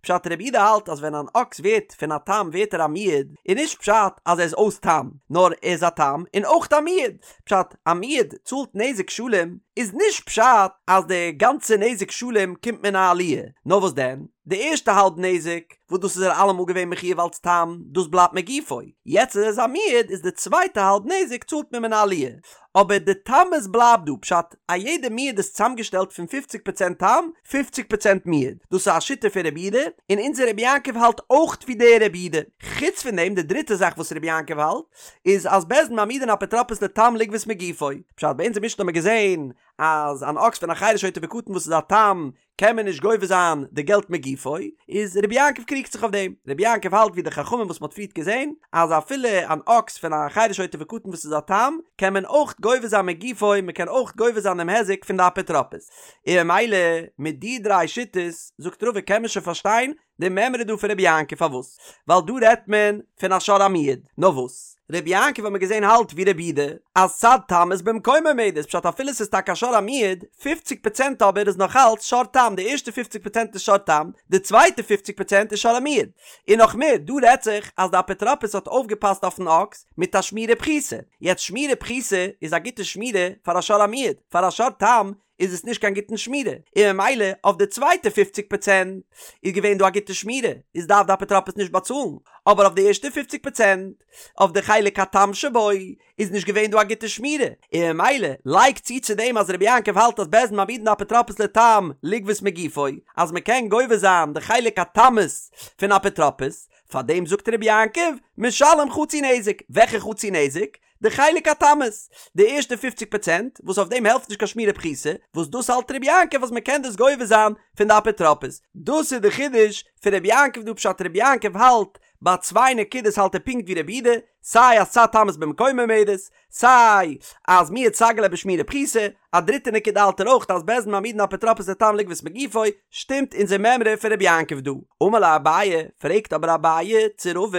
Speaker 1: פשט רבי יהודה האלט אז ווען אן אקס ווערט פון א תם ווערט ער א מועד, איז נישט פשט אז ער איז אויס תם, נאר ער איז א תם און אויך א מועד, פשט א מועד צאלט נזק שלם איז נישט פשט אז די גאנצע נזק שלם קומט מן העליה, נאר וואס דען די ערשטע האלב נזק וואס דאס איז ער אלעמאל געווען מחויב אלץ תם דאס בלייבט מגופו, יעצט אז ער איז א מועד איז די צווייטע האלב נזק צאלט מען מן העליה, אבער די תמות בלייבט דא, פשט, א יעדע מועד איז צוזאמגעשטעלט פון פופציג פראצענט תם, פופציג פראצענט מועד. דאס איז א שיטה פון רבי יהודה, און אונזער רבי יעקב האלט אויך ווי דער רבי יהודה. חוץ פון דעם, די דריטע זאך וואס רבי יעקב האלט, איז אז בית דין מעמידין אפוטרופוס לתם לגבות מגופו. פשט, ביי אונזער משנה האט מען געזען אז אן אקס פון א חרש שוטה וקטן וואס איז א תם, קען מען נישט גובה זיין די געלט מגופו, איז רבי יעקב קריגט זיך אויף דעם, רבי יעקב האלט ווי די חכמים וואס מ'האט פריערט געזען, אז אפילו אן אקס פון א חרש שוטה וקטן וואס איז א תם, קען מען אויך גובה זיין מגופו, מ'קען אויך גובה זיין דעם היזק פון די אפוטרופוס. און ממילא מיט די דריי שיטות, זאגט רבא קען מען שוין פארשטיין די מימרא דא פון רבי יעקב פארוואס? ווייל דא רעדט מען פון א שור המועד, נאר וואס? רבי יעקב האט מען געזען האלט ווי רבי יהודה אז צד תמות במקומה עומדת, פשט אפילו ס'איז טאקע א שור המועד, פופציג פראצענט אבער איז נאך אלץ שור תם, די ערשטע פופציג פראצענט איז שור תם, די צווייטע פופציג פראצענט איז שור המועד. און נאך מער, דא רעדט זיך אז די אפוטרופוס האט אויפגעפאסט אויפן אקס מיט א שמירה פחותה, יעצט שמירה פחותה איז א גוטע שמירה פאר א שור המועד, פאר א שור תם איז עס נישט קיין גוטן שמירה, און ממילא אויף די צווייטע פופציג פראצענט איז געווען דא א גוטע שמירה, איז דארף די אפוטרופוס נישט באצאלן, אבער אויף די ערשטע פופציג פראצענט, אויף די חלק התם שבו, איז נישט געווען דא א גוטע שמירה, און ממילא לייג צו צו דעם אז רבי יעקב האלט אז בית דין מעמידין אפוטרופוס לתם לגבות מגופו, אז מען קען גובה זיין די חלק התמות פון אפוטרופוס, פארדעם זאגט רבי יעקב, משלם חצי נזק, וועלכע חצי נזק? די חלק התמות, די ערשטע פופציג פראצענט, וואס אויף דעם העלפט נישט קיין שמירה פחותה, וואס דאס האלט רבי יעקב אז מען קען דאס גובה זיין פון די אפוטרופוס. דאס איז די חידוש פון רבי יעקב דא פשט רבי יעקב האלט ביי צוויי נקודות האלט ער פונקט ווי רבי יהודה, סיי אז צד תמות במקומה עומדת, סיי אז מועד סגי ליה בשמירה פחותה, א דריטע נקודה האלט ער אויך אז בית דין מעמידין אפוטרופוס לתם לגבות מגופו, שטימט אונזער מימרא פון רבי יעקב דא. אמר ליה אביי, פרעגט אבער אביי צו רבא,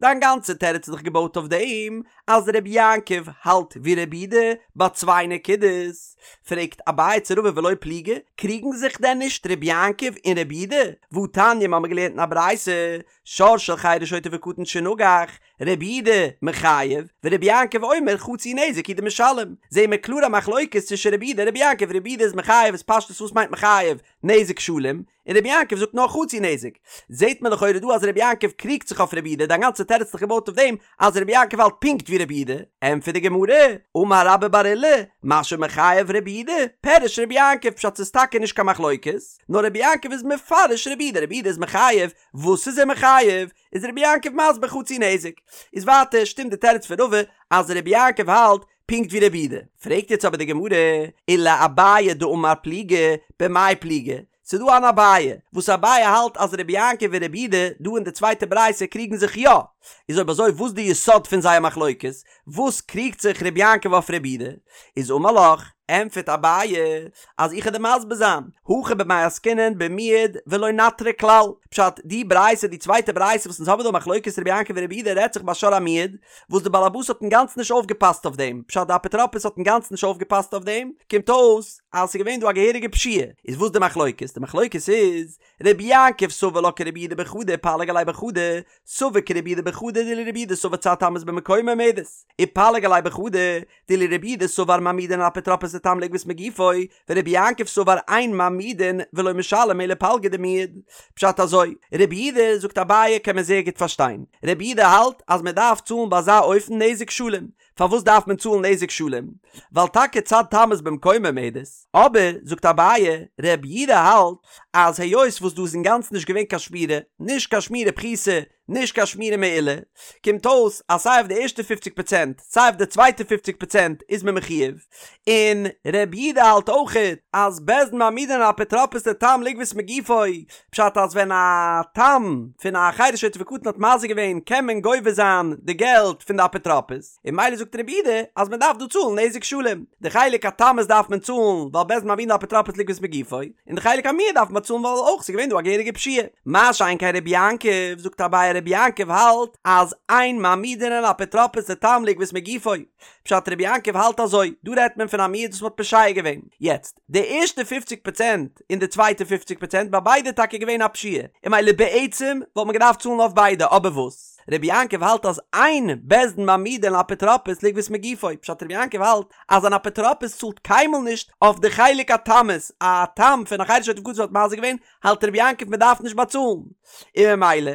Speaker 1: דיין גאנצע תירוץ איז דאך געבויט אויף דעם אז רבי יעקב האלט ווי רבי יהודה ביי צוויי נקודות, פרעגט אביי צו רבא ולא פליגי, קריגן זיך דען נישט רבי יעקב און רבי יהודה? והתניא מ'האמיר געלערנט אין א ברייתא, שור של חרש שוטה וקטן שנגח, רבי יהודה מחייב, ורבי יעקב אומר חצי נזק הוא דמשלם, זעהן מיר קלאר א מחלוקת צווישן רבי יהודה און רבי יעקב, רבי יהודה איז מחייב איז פשטות וואס מיינט מחייב? נזק שלם, און רבי יעקב זאגט נאר חצי נזק, זעהט מען לכאורה דא אז רבי יעקב קריגט זיך אויף רבי יהודה, דיין גאנצע תירוץ איז דאך געבויט אויף דעם אז רבי יעקב האלט פונקט ווי רבי יהודה, ענטפערט די גמרא, אמר רבה בר עולא, מה שמחייב רבי יהודה, פירש רבי יעקב, פשט ס'איז טאקע נישט קיין מחלוקת, נאר רבי יעקב איז מפרש רבי יהודה, רבי יהודה איז מחייב, וואס איז ער מחייב? איז רבי יעקב מסביר חצי נזק. איז ווייטער שטימט די תירוץ פון רבא אז רבי יעקב האלט פונקט ווי רבי יהודה. פרעגט יעצט אבער די גמרא, ולאביי דאמר פליגי, במאי פליגי? ס'איז דא אן אביי, וואס אביי האלט אז רבי יעקב און רבי יהודה דא אין די צווייטע ברייתא קריגן זיך יא. איז אויב אזוי וואס די יסוד פון זייער מחלוקת? וואס קריגט זיך רבי יעקב אויף רבי יהודה? איז אמר לך, ענטפערט אביי, אז איך וועל דיר מסביר זיין, הכא במאי עסקינן במועד ולא נטריה כלל, פשט, די ברייתא, די צווייטע ברייתא וואס אונז האבן דא מחלוקת רבי יעקב און רבי יהודה רעדט זיך ביי שור המועד, וואס די בעל הבית האט אינגאנצן נישט אויפגעפאסט אויף דעם, פשט די אפוטרופוס האט אינגאנצן נישט אויפגעפאסט אויף דעם, קומט אויס אז ס'איז געווען דא א געהעריגע פשיעה, איז וואס די מחלוקת? די מחלוקת איז, רבי יעקב סבר לה כרבי יהודה בחדא ופליג עליה בחדא, סבר כרבי יהודה בחדא דאילו רבי יהודה סבר צד תמות במקומה עומדת, ופליג עליה בחדא, דאילו רבי יהודה סבר מעמידין אפוטרופוס לתם לגבות מגופו, ורבי יעקב סבר אין מעמידין ולא משלם אלא פלגא דמועד. פשט אזוי, רבי יהודה, זאגט אביי, קען מען זייער גוט פארשטיין. רבי יהודה האלט אז מען דארף צאלן ביי אזא אופן נזק שלם. פארוואס דארף מען צאלן נזק שלם? ווייל טאקע צד תמות במקומה עומדת. אבער, זאגט אביי, רבי יהודה האלט אז היות וואס דא איז אינגאנצן נישט געווען קיין שמירה, נישט קיין שמירה פחותה, נישט קיין שמירה מעולה, קומט אויס אז סיי אויף די ערשטע פופציג פראצענט סיי אויף די צווייטע פופציג פראצענט איז מען מחויב, און ר' יהודה האלט אויכעט אז בית דין מעמידין אפוטרופוס לתם לגבות מגופו, פשט אז ווען א תם פון א חרש שוטה וקטן האט מזיק געווען קען מען גובה זיין די געלט פון די אפוטרופוס. און ממילא זאגט רבי יהודה אז מען דארף דא צאלן נזק שלם, די חלק התמות דארף מען צאלן ווייל בית דין מעמידין אפוטרופוס לגבות מגופו, און די חלק המועד דארף מען צאלן ווייל אויך ס'איז געווען דא א געהעריגע פשיעה. מה שאין כן רבי יעקב, זאגט אביי רבי יעקב האלט אז אין מעמידין אפוטרופוס לתם לגבות מגופו, פשט רבי יעקב האלט אזוי, דא רעדט מען פון א מועד וואס מען האט פושע געווען, יעצט די ערשטע פופציג פראצענט און די צווייטע פופציג פראצענט ביי ביידע איז טאקע געווען א פשיעה, און ממילא בעצם וואלט מען געדארפט צאלן אויף ביידע, אבער וואס? רבי יעקב האלט אז אין בית דין מעמידין אפוטרופוס לגבות מגופו, פשט רבי יעקב האלט אז אן אפוטרופוס צאלט קיינמאל נישט אויף די חלק התמות, א תם פון א חרש שוטה וקטן האט מזיק געווען, האלט רבי יעקב מען דארף נישט באצאלן, און ממילא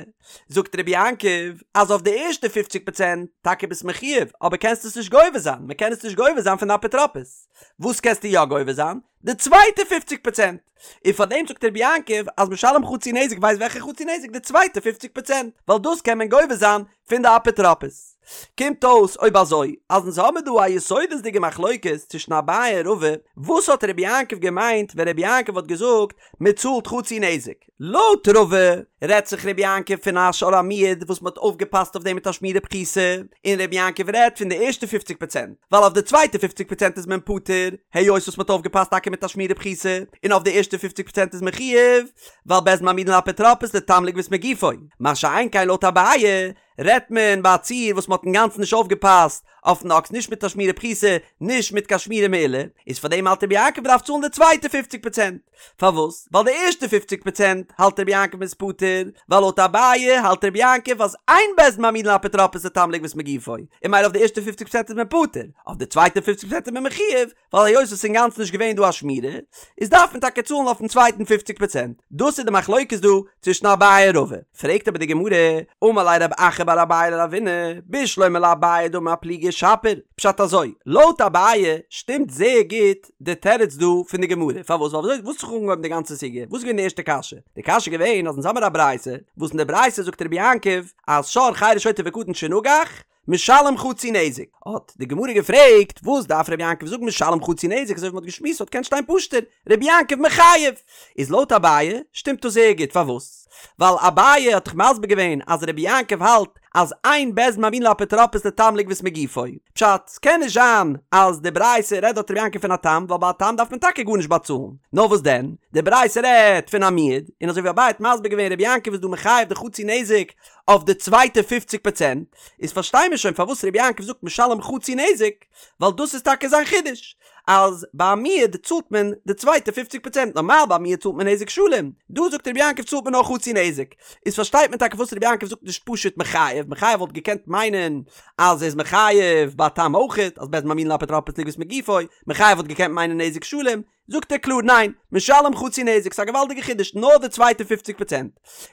Speaker 1: זאגט רבי יעקב אז אויף די ערשטע פופציג פראצענט טאקע ביסט מחויב אבער קענסט עס נישט גובה זיין, מען קען עס נישט גובה זיין פון די אפוטרופוס, וואס קענסטו יא גובה זיין? די צווייטע פופציג פראצענט! און פאר דעם זאגט רבי יעקב אז משלם חצי נזק ווייסט וועלכע חצי נזק די צווייטע פופציג פראצענט ווייל דאס קען מען גובה זיין פון די אפוטרופוס. קומט אויס אויב אזוי אז אונז האמיר דא א יסודות'דיגע מחלוקת צווישן אביי און רבא, וואס האט רבי יעקב געמיינט ווען רבי יעקב האט געזאגט מען צאלט חצי נזק? לויט רבא רעדט זיך רבי יעקב פון א שור המועד וואס מען האט אויפגעפאסט אויף דעם מיט א שמירה פחותה, און רבי יעקב רעדט פון די ערשטע פופציג פראצענט, ווייל אויף די צווייטע פופציג פראצענט איז מען פטור, היות וואס מען האט אויפגעפאסט טאקע מיט א שמירה פחותה, און אויף די ערשטע פופציג פראצענט איז מען חייב, ווייל בית דין מעמידין לאפוטרופוס לתם לגבות מגופו, מה שאין כן לויט אביי רעדט מען ביי א ציור וואס מען האט אינגאנצן נישט אויפגעפאסט אויפן אקס נישט מיט א שמירה פחותה נישט מיט קיין שמירה מעולה, איז פאר דעם האלט רבי יעקב מ'דארף צאלן די צווייטע פופציג פראצענט, פארוואס? ווייל די ערשטע פופציג פראצענט האלט רבי יעקב מ'איז פטור, ווייל לויט אביי האלט רבי יעקב אז אין בית דין מעמידין לאפוטרופוס לתם לגבות מגופו, און ממילא אויף די ערשטע פופציג פראצענט איז מען פטור, אויף די צווייטע פופציג פראצענט איז מען מחויב, ווייל היות עס איז אינגאנצן נישט געווען דא א שמירה, איז דארף מען טאקע צאלן אויפן צווייטן פופציג פראצענט. דאס איז די מחלוקת דא צווישן אביי און רבא. פרעגט אבער די גמרא, אמר ליה רב אחא בר אביי לרבינא, בשלמא לאביי דאמר אפלוגי שפיר, פשט אזוי, לויט אביי שטימט זייער גוט די תירוץ דא פון די גמרא, פארוואס? ווייל וויאזוי וואס האט זיך אנגעהויבן די גאנצע סוגיא? וואס איז געווען די ערשטע קשיא? די קשיא איז געווען אז אונז האמיר א ברייתא, וואס אין די ברייתא זאגט רבי יעקב אז שור חרש שוטה וקטן שנגח, משלם חצי נזק, האט די גמרא געפרעגט, וואס דארף רבי יעקב זאגן משלם חצי נזק, אזוי ווי מ'האט געשמועסט וואלט געקענט שטיין פשוט'ער, רבי יעקב מחייב. איז לויט אביי שטימט דאס זייער גוט, פארוואס? ווייל אביי האט דאך מסביר געווען אז רבי יעקב האלט אז אין בית דין מעמידין לאפוטרופוס לתם לגבות מגופו, פשט, ס'קען נישט זיין אז די ברייתא רעדט דארט רבי יעקב פון א תם, ווייל ביי א תם דארף מען טאקע גארנישט באצאלן, נאר וואס דען, די ברייתא רעדט פון א מועד, און אזוי ווי אביי האט מסביר געווען רבי יעקב איז דא מחייב די חצי נזק אויף די צווייטע פופציג פראצענט, איז פארשטיי מיר שוין פארוואס רבי יעקב זאגט משלם חצי נזק, ווייל דאס איז טאקע זיין חידוש, אז ביי א מועד צאלט מען די צווייטע פופציג פראצענט, נארמאל ביי א מועד צאלט מען נזק שלם, דא זאגט רבי יעקב צאלט מען נאר חצי נזק, איז פארשטייט מען טאקע פארוואס רבי יעקב זאגט נישט פשוט מחייב, מחייב וואלט געקענט מיינען אז ער איז מחייב ביי א תם אויכעט, אז בית דין מעמידין לאפוטרופוס לגבות מגופו, מחייב וואלט געקענט מיינען נזק שלם, זאגט ער קלאר ניין, משלם חצי נזק, ס'איז א געוואלדיגע חידוש, נאר די צווייטע פופציג פראצענט.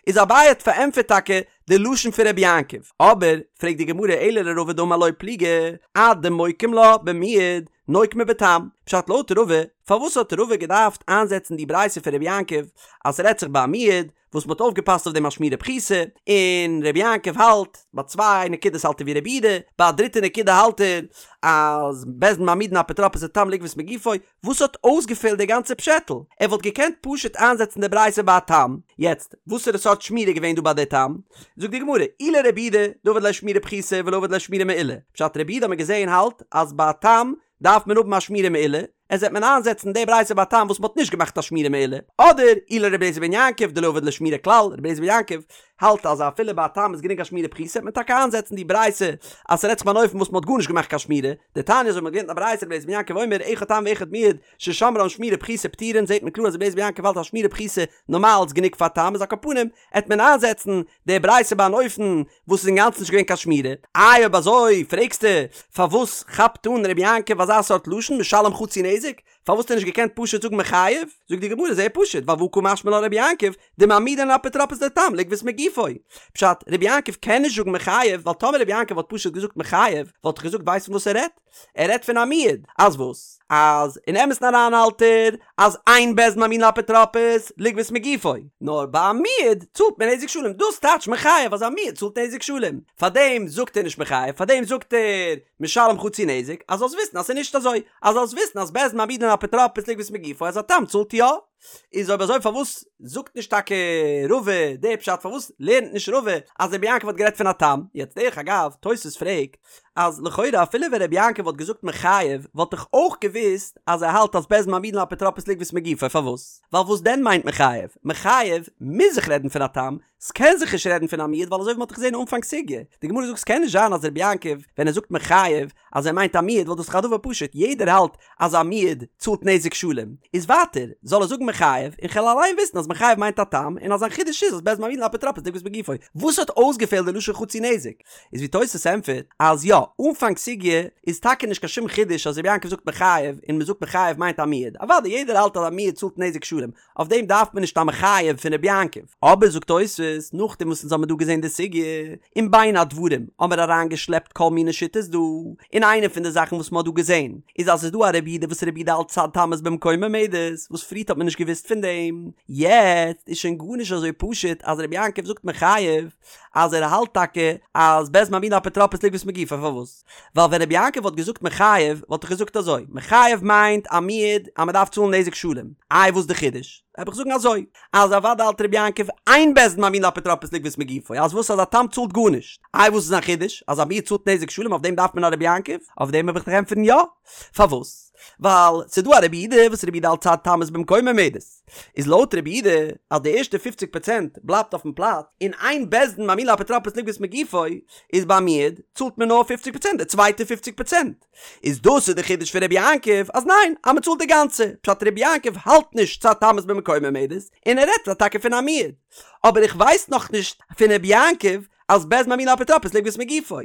Speaker 1: איז אביי האט פארענטפערט טאקע די לשון פון רבי יעקב, אבער פרעגט די גמרא אלא לרבא דאמר לא פליגי, עד דמוקים לה במועד נוקמה בתם, פשט לויט רבא, פארוואס האט רבא געדארפט איינזעצן די ברייתא פון רבי יעקב אז ס'רעדט זיך ביי א מועד, וואס מ'האט אויפגעפאסט אויף דעם א שמירה פחותה, און רבי יעקב האלט, ביי צוויי נקודות האלט ער ווי רבי יהודה, ביי א דריטע נקודה האלט ער אז בית דין מעמידין אפוטרופוס לתם לגבות מגופו, וואס האט אויסגעפעלט די גאנצע פשעטל? ער וואלט געקענט פשוט איינזעצן די ברייתא ביי א תם, יעצט, וואסערע סארט שמירה איז געווען דא ביי די תם? זאגט די גמרא, אי לרבי יהודה דעביד ליה שמירה פחותה ולא עביד ליה שמירה מעולה, פשט רבי יהודה האט מען געזען האלט אז ביי א תם דארף מען האבן א שמירה מעולה, איז וועט מען איינזעצן די ברייתא ביי א תם וואס מ'האט נישט געמאכט א שמירה מעולה, אדער אי לרבי אליעזר בן יעקב דלא עביד ליה שמירה כלל, רבי אליעזר בן יעקב האלט אז אפילו ביי א תם איז גענוג א שמירה פחותה וועט מען טאקע איינזעצן די ברייתא אז ס'רעדט זיך ביי אן אופן וואס מ'האט גארנישט געמאכט קיין שמירה, דתניא אזוי מ'האט געלערנט א ברייתא רבי אליעזר בן יעקב אומר אחד תם ואחד מועד ששמרן שמירה פחותה פטורין זעט מען קלאר אז רבי אליעזר בן יעקב האלט אז שמירה פחותה נארמאל איז גענוג פאר תם איז על כל פנים עט מען איינזעצן די ברייתא ביי אן אופן וואס איז אינגאנצן נישט געווען קיין שמירה, איי אויב אזוי פרעגסטו פארוואס כאפט אן רבי יעקב אזא סארט לשון משלם חצי נזק, פארוואס האט ער נישט געקענט פשוט זאגן מחייב, זאגט די גמרא זייער פשוט ווייל והא קא משמע לן רבי יעקב דמעמידין לאפוטרופוס לתם לגבות מגופו, פשט, רבי יעקב קען נישט זאגן מחייב ווייל טאמער רבי יעקב וואלט פשוט געזאגט מחייב וואלט איך געזאגט ווייסט פון וואס ער רעדט? ער רעדט פון א מועד, אז וואס? אז אין אמת'ן אריין האלט ער אז אין בית דין מעמידין לאפוטרופוס לגבות מגופו, נאר ביי א מועד צאלט מען נזק שלם, דאס טייטש מחייב אז א מועד צאלט נזק שלם, פארדעם זאגט ער נישט מחייב, פארדעם זאגט ער משלם חצי נזק, אז זאלסט וויסן אז ס'איז נישט אזוי, אז זאלסט וויסן אז בית דין מעמידין לאפוטרופוס לגבות מגופו אז א תם צאלט יא. איז אויב אזוי פארוואס זאגט נישט טאקע רבא די פשט פארוואס לערנט נישט רבא אז רבי יעקב האט גערעדט פון א תם יעצט דרך אגב תוס' פרעגט אז לכאורה אפילו ווען רבי יעקב וואלט געזאגט מחייב וואלט איך אויך געוואוסט אז ער האלט אז בית דין מעמידין לאפוטרופוס לגבות מגופו פארוואס ווייל וואס דען מיינט מחייב מחייב מוז זיך רעדן פון א תם ס'קען זיך נישט רעדן פון א מועד ווייל אזוי ווי מ'האט דאך געזען אנפאנג סוגיא די גמרא זאגט ס'קען נישט זיין אז רבי יעקב ווען ער זאגט מחייב אז ער מיינט א מועד ווייל דאס איז דאך א דבר פשוט יעדער האלט אז א מועד צאלט נזק שלם איז ווייטער זאל ער זאגן מחייב און כ'על אליין וויסן אז מחייב מיינט א תם און אז זיין חידוש איז אז בית דין מעמידין לאפוטרופוס לגבות מגופו וואס האט אויסגעפעלט די לשון חצי נזק איז ווי תוס' ענטפערט אז יא אנפאנג סוגיא איז טאקע נישט קיין שום חידוש אז רבי יעקב זאגט מחייב און מ'זאגט מחייב מיינט א מועד אוודאי יעדער האלט אז א מועד צאלט נזק שלם אויף דעם דארף מען נישט א מחייב פון רבי יעקב. אבער זאגט תוספות, נאכדעם וואס אונז האמיר דא געזען די סוגיא, און בין הדברים האמיר אריינגעשלעפט כל מיני שיטות דא, און איינע פון די זאכן וואס מ'האט דא געזען, איז אז ס'איז דא א רבי יהודה וואס רבי יהודה האלט צד תמות במקומה עומדת, וואס פריערט האט מען נישט. נישט געוואוסט פון דעם, יעצט איז שוין גארנישט אזוי פשוט אז רבי יעקב זאגט מחייב אז ער האלט טאקע אז בית דין מעמידין אפוטרופוס לגבות מגופו, פארוואס? ווייל ווען רבי יעקב וואלט געזאגט מחייב וואלט איך געזאגט אזוי, מחייב מיינט א מועד אז מען דארף צאלן נזק שלם, איי וואס די חידוש? וועל איך זאגן אזוי, אז אוודאי האלט רבי יעקב אין בית דין מעמידין אפוטרופוס לגבות מגופו, אז וואס אז א תם צאלט גארנישט, איי וואס איז א חידוש אז א מועד צאלט נזק שלם אויף דעם דארף מען א רבי יעקב? אויף דעם וועל איך דיך ענטפערן יא, פארוואס? ווייל ס'איז דא א רבי יהודה וואס רבי יהודה האלט צד תמות במקומה עומדת, איז לויט רבי יהודה אז די ערשטע פופציג פראצענט בלייבט אויפן פלאץ, און אין בית דין מעמידין לאפוטרופוס לגבות מגופו, איז ביי מועד צאלט מען נאר פופציג פראצענט די צווייטע פופציג פראצענט. איז דאס איז די חידוש פון רבי יעקב אז ניין אז מען צאלט די גאנצע, פשט רבי יעקב האלט נישט צד תמות במקומה עומדת, און ער רעדט טאקע פון א מועד. אבער איך ווייס נאכנישט פון רבי יעקב אז בית דין מעמידין לאפוטרופוס לגבות מגופו.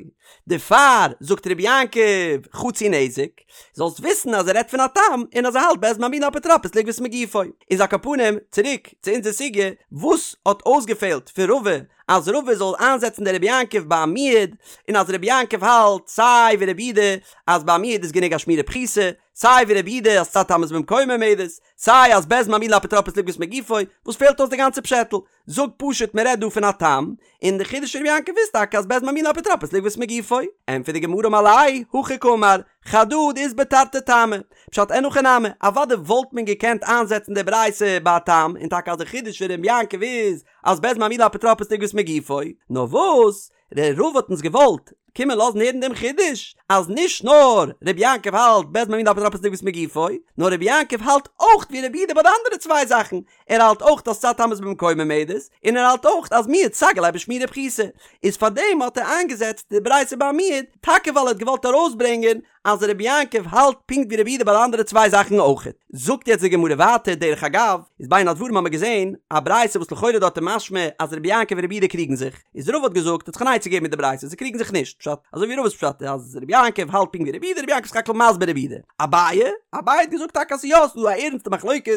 Speaker 1: דערפאר זאגט רבי יעקב חצי נזק, זאלסט וויסן אז ער רעדט פון א תם און אז ער האלט בית דין מעמידין לאפוטרופוס לגבות מגופו. איז על כל פנים, צוריק צו אונזער סוגיא, וואס האט אויסגעפעלט פון רבא אז רבא זאל איינזעצן די רבי יעקב ביי א מועד, און אז רבי יעקב האלט סיי ווי רבי יהודה אז ביי א מועד איז גענוג א שמירה פחותה, סיי ווי רבי יהודה אז צד תמות במקומה עומדת, סיי אז בית דין מעמידין לאפוטרופוס לגבות מגופו, וואס פעלט אויס די גאנצע פשעטל? זאג פשוט מען רעדט דא פון א תם, און די חידוש פון רבי יעקב איז טאקע אז בית דין מעמידין לאפוטרופוס לגבות מגופו. ענטפערט די גמרא אמר ליה, הכי קאמר, חדא דאית ביה תרתי טעמי. פשט אין הכי נמי, אוודאי וואלט מען געקענט איינזעצן די ברייתא ביי א תם, און טאקע אז די חידוש פון רבי יעקב איז אז בית דין מעמידין לאפוטרופוס לגבות מגופו, נאר וואס, דער רבא האט אונז געוואלט קומען לאזן הערן דעם חידוש, אז נישט נאר רבי יעקב האלט בית דין מעמידין לאפוטרופוס לגבות מגופו, נאר רבי יעקב האלט אויך ווי רבי יהודה ביי די אנדערע צוויי זאכן, ער האלט אויך אז צד תמות במקומה עומדת, און ער האלט אויך אז מועד סגי ליה בשמירה פחותה, איז פארדעם האט ער איינגעזעצט די ברייתא ביי מועד, טאקע ווייל ער האט געוואלט ארויסברענגען אז רבי יעקב האלט פונקט ווי רבי יהודה ביי די אנדערע צוויי זאכן אויכעט. זאגט יעצט די גמרא ווייטער, דרך אגב, איז בין הדברים האמיר געזען א ברייתא וואס לכאורה דארט איז משמע אז רבי יעקב און רבי יהודה קריגן זיך, איז רבא האט געזאגט האט זיך אן עצה געגעבן מיט די ברייתא זיי קריגן זיך נישט, פשט, אזוי ווי רבא'ס פשט אז רבי יעקב האלט פונקט ווי רבי יהודה, רבי יעקב איז סך הכל מסביר רבי יהודה. אביי, אביי האט געזאגט טאקע אז ס'איז יא ס'איז דא א ערנסטע מחלוקת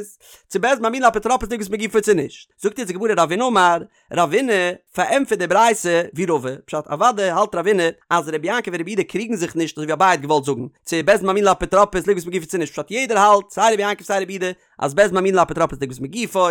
Speaker 1: צו בית דין מעמידין לאפוטרופוס לגבות מגופו צו נישט. זאגט יעצט די גמרא רבינא אמר, רבינא פארענטפערט די ברייתא ווי רבא, פשט אוודאי האלט רבינא אז רבי יעקב און רבי יהודה קריגן זיך נישט אזוי ווי אביי האט געוואלט זאגן, צו בית דין מעמידין לאפוטרופוס לגבות מגופו צו נישט, פשט יעדער האלט סיי רבי יעקב סיי רבי יהודה אז בית דין מעמידין לאפוטרופוס לגבות מגופו,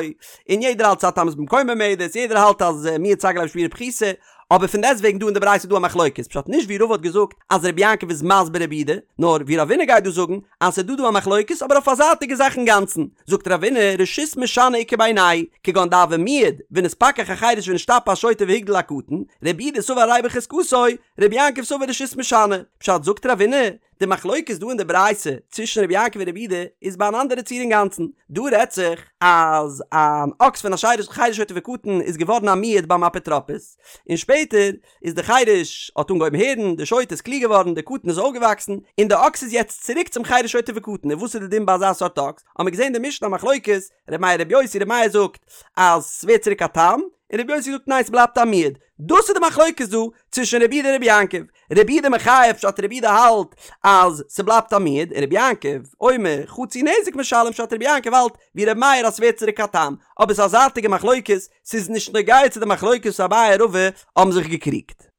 Speaker 1: און יעדער האלט צד תמות במקומה עומדת, יעדער האלט אז מועד סגי ליה בשמירה פחותה, אבער פון דעסטוועגן דא אין די ברייתא איז דא א מחלוקת, פשט נישט ווי רבא האט געזאגט אז רבי יעקב איז מסביר רבי יהודה, נאר ווי רבינא גייט דא זאגן אז ס'איז דא דא א מחלוקת אבער אויף א זייטיגע זאך אינגאנצן, זאגט רבינא רשות משנה איכא בינייהו, כגון דהוה מועד ונתפכח החרש ונשתפה השוטה והגדיל הקטן, רבי יהודה סבר הרי בחזקתו, רבי יעקב סבר רשות משנה, פשט זאגט רבינא, די מחלוקת דא אין די ברייתא צווישן רבי יעקב און רבי יהודה איז ביי אן אנדערע ציור אינגאנצן, דא רעדט זיך אז אן אקס פון א חרש שוטה וקטן איז געווארן א מועד ביים אפוטרופוס, און שפעטער איז די חרש האט אנגעהויבן הערן, די שוטה איז קלוג געווארן, די קטן איז אויפגעוואקסן, און די אקס איז יעצט צוריק צום חרש שוטה וקטן, און וואס איז די דין ביי אזא סארט אקס? האמיר געזען די משנה א מחלוקת, ר' מאיר ר' יוסי, ר' מאיר זאגט אז ס'ווערט צוריק א תם, און ר' יוסי זאגט ניין ס'בלייבט א מועד, דאס איז די מחלוקת דא צווישן רבי יהודה און רבי יעקב, רבי יהודה מחייב פשט רבי יהודה האלט אז ס'בלייבט א מועד, און רבי יעקב אומר חצי נזק משלם פשט רבי יעקב האלט ווי רבי מאיר אז ס'ווערט צוריק א תם, אבער ס'איז א זייטיגע מחלוקת, ס'איז נישט נוגע צו די מחלוקת וואס אביי און רבא האבן זיך געקריגט.